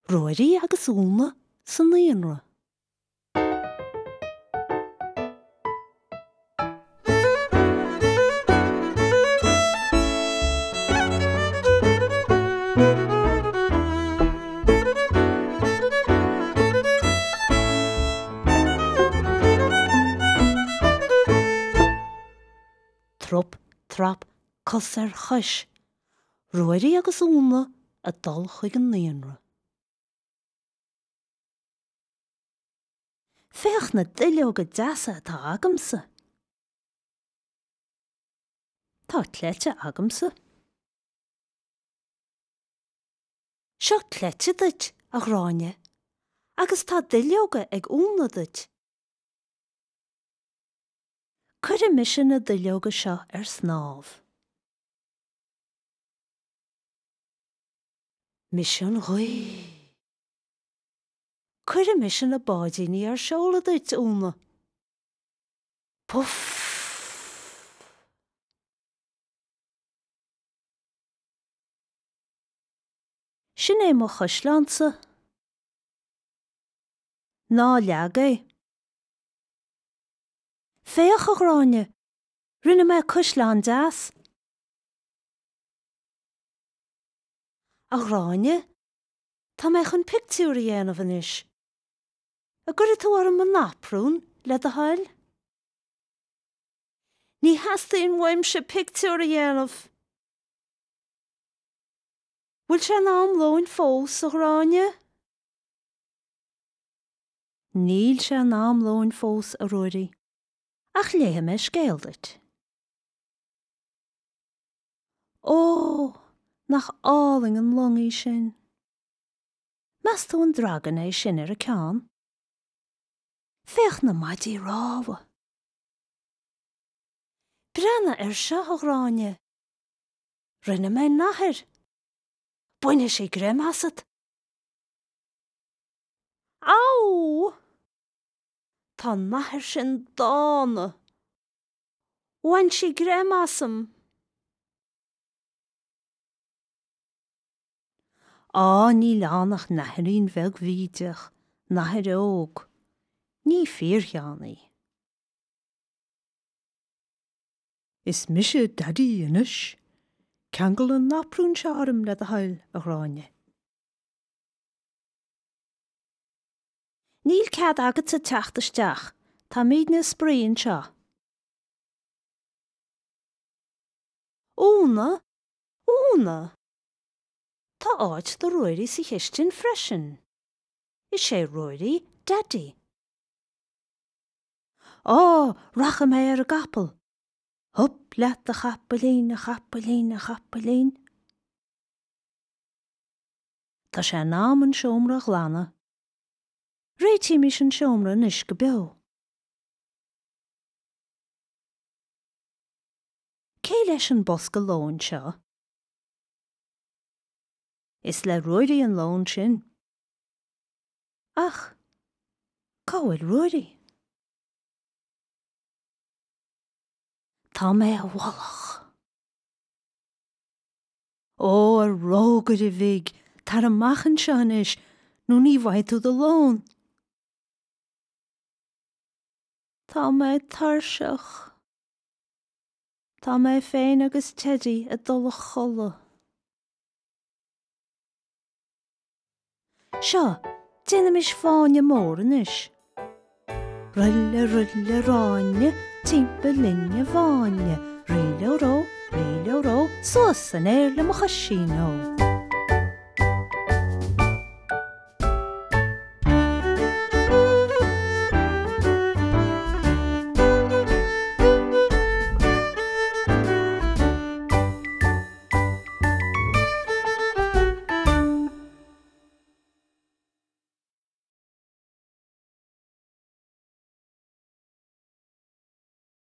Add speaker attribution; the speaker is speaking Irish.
Speaker 1: Ruairí agus Úna sa naíonra. Trup, trap, cos ar chois. Ruairí agus Úna ag dul chuig an naíonra. Féach na duilleoga deasa atá agamsa! Tá cleite agamsa. Seo cleite duit, a Ghráinne, agus tá duilleoga ag Úna duit. Cuirfidh mise na duilleoga seo ar snámh. Mise an ghaoth. Cuirfidh mise na báidíní ar seoladh duit, Úna. Puf! Sin é mo chaisleánsa. Ná leag é. Féach, a Ghráinne, rinne mé caisleán deas. A Ghráinne, tá mé chun pictiúr a dhéanamh anois. An gcuirfidh tú orm an naprún, le do thoil? Ní theastaíonn uaimse pictiúr a dhéanamh! Bhfuil sé in am lóin fós, a Ghráinne? Níl sé in am lóin fós, a Ruairí, ach léifidh mé scéal duit. Ó, nach álainn an long í sin! Meas tú an dragan é sin ar a ceann? Féach na maidí rámha! Breathnaigh air seo, a Ghráinne! Rinne mé nathair! Bainfidh sí greim asat! Á! Tá an nathair sin dána! Bhain sí greim asam. Á, níl ann ach nathairín bheag bhídeach, nathair óg. Ní fíorcheann í. Is mise Daidí anois. Ceangail an naprún seo orm, le do thoil, a Ghráinne. Níl cead agatsa teacht isteach, táimidne ag spraoi anseo. Úna! Úna! Tá áit do Ruairí sa chistin freisin. Is é Ruairí Daidí. Á, rachaidh mé ar an gcapall! Hup leat a chapaillín, a chapaillín, a chapaillín. Tá sé in am an seomra a ghlanadh. Réitímis an seomra anois go beo. Cé leis an bosca lóin seo? Is le Ruairí an lón sin. Ach cá bhfuil Ruairí? Tá mé i bhfolach. Ó, a rógaire bhig, tar amach anseo anois nó ní bhfaighidh tú do lón. Tá mé tuirseach. Tá mé féin agus Teidí ag dul a chodladh. Seo, déanaimis fáinne mór anois. Ruille, ruille, ráinne, timpeall linn i bhfáinne, ríleoró, ríleoró, suas san aer le mo choisín ó.